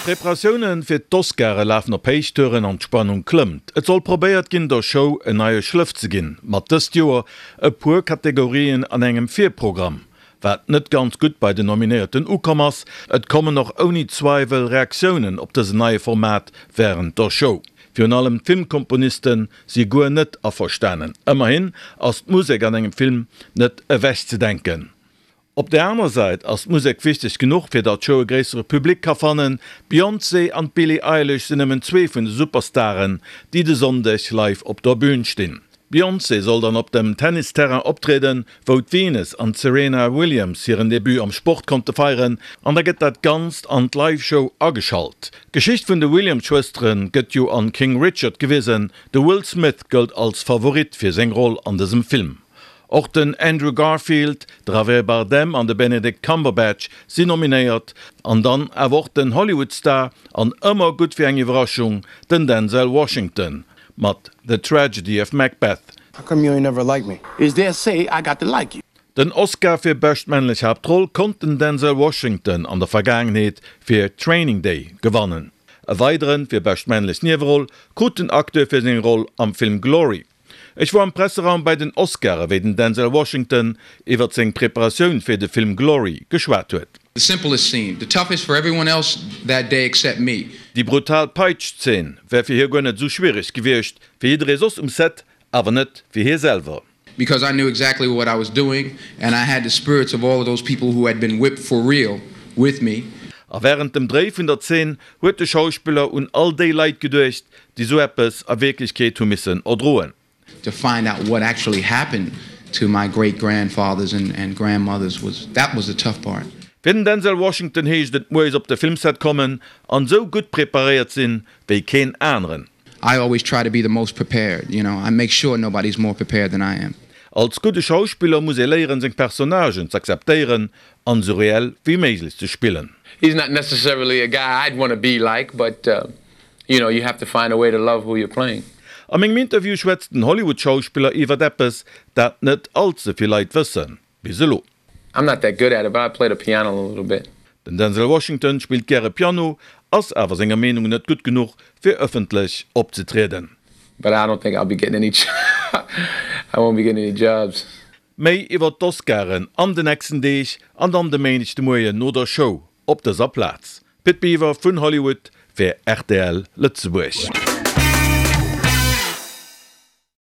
D'Preparatioune fir d'Oscare lafen op Héichtouren an d'Spannung klëmmt. Et soll probéiert ginn, der Show en neie Schlëff ze ginn, mat dëst Joer e puer Kategorien an engem Virprogramm. Wat net ganz gutt bei den Nominéierten ukomm ass, et kommen och ouni Zweiwel Reaktiounen op dësen neie Format wärend der Show. Virun allem d'Filmkomponiste si guer net averstanen. Ëmmerhin ass d'Musek an engem Film net ewechzedenken. Op der aner Säit ass d'Musek wichteg genuch, fir datt d'Show e gréissere Public ka fannen. D'Beyoncé an d'Billie Eilish sinn nëmmen zwee vun de Superstaren, déi de Sonndeg live op der Bün stinn. D'Beyoncé soll dann op dem Tennisterrain optrieden, wou d'Venus an d'Serena Williams hiren Debut am Sport konnte feieren, an da gëtt dat Ganzt an d'Live-Show ageschalt. D'Geschicht vun de Williams-Schwëstere gëtt jo an King Richard gewisen. De Will Smith gëllt als Favorit fir seng Roll an dësem Film. Och den Andrew Garfield, de Javier Bardem an de Benedict Cumberbatch sinn nominéiert. An dann awer och den Hollywood-Star an ëmmer gutt fir eng Iwwerraschung, den Denzel Washington mat The Tragedy of Macbeth. How come you ain't never liked me? Is there say I got to like you? Den Oscar fir bescht männlech Haaptroll konnt den Denzel Washington an der Vergaangenheet fir Training Day gewannen. E weideren fir bescht männlech Nieweroll krut den Acteur fir seng Roll am Film Glory. Ech wor am Presseraum bei den Oscaren, wéi den Denzel Washington iwwert seng Preparatioun fir de Film Glory geschwat huet. The simplest scene, the toughest for everyone else that day except me. Déi brutal Peitsch-Zeen wär fir hie guer net esou schwiereg gewiescht, fir jidderee soss um Set, awer net fir hie selwer. Because I knew exactly what I was doing and I had the spirits of all of those people who had been whipped for real with me. A wärend dem Dréi vun der Zeen huet de Schauspiller un all déi Leit geduecht, déi sou eppes a Wierklechkeet hu missen erdroen. To find out what actually happened to my great grandfathers and grandmothers was, that was the tough part. Fir den Denzel Washington heescht et moies op de Filmset kommen an sou gutt preparéiert sinn wéi keen aneren. I always try to be the most prepared, you know, I make sure nobody's more prepared than I am. Als gudde Schauspiller muss ee léieren seng Personnagen z'akzeptéieren an sou reell wéi méiglech ze spillen. He's not necessarily a guy I'd wanna be like, but you know, you have to find a way to love who you're playing. A mengem Interview schwätzt den Hollywood-Schauspiller iwwert eppes, dat net all ze vill Leit wëssen, bis elo. I'm not that good at it, but I play the piano a little bit. Den Denzel Washington spillt gäre Piano, ass awer senger Meenung net gutt genuch, fir ëffentlech opzetrieden. But I don't think I'll be getting any I won't be getting any jobs. Méi iwwer d'Oscaren an de nächsten Deeg an dann de Méindeg de Moien no der Show op dëser Plaz. Pit Biwer vun Hollywood fir rtl Lëtzebuerg.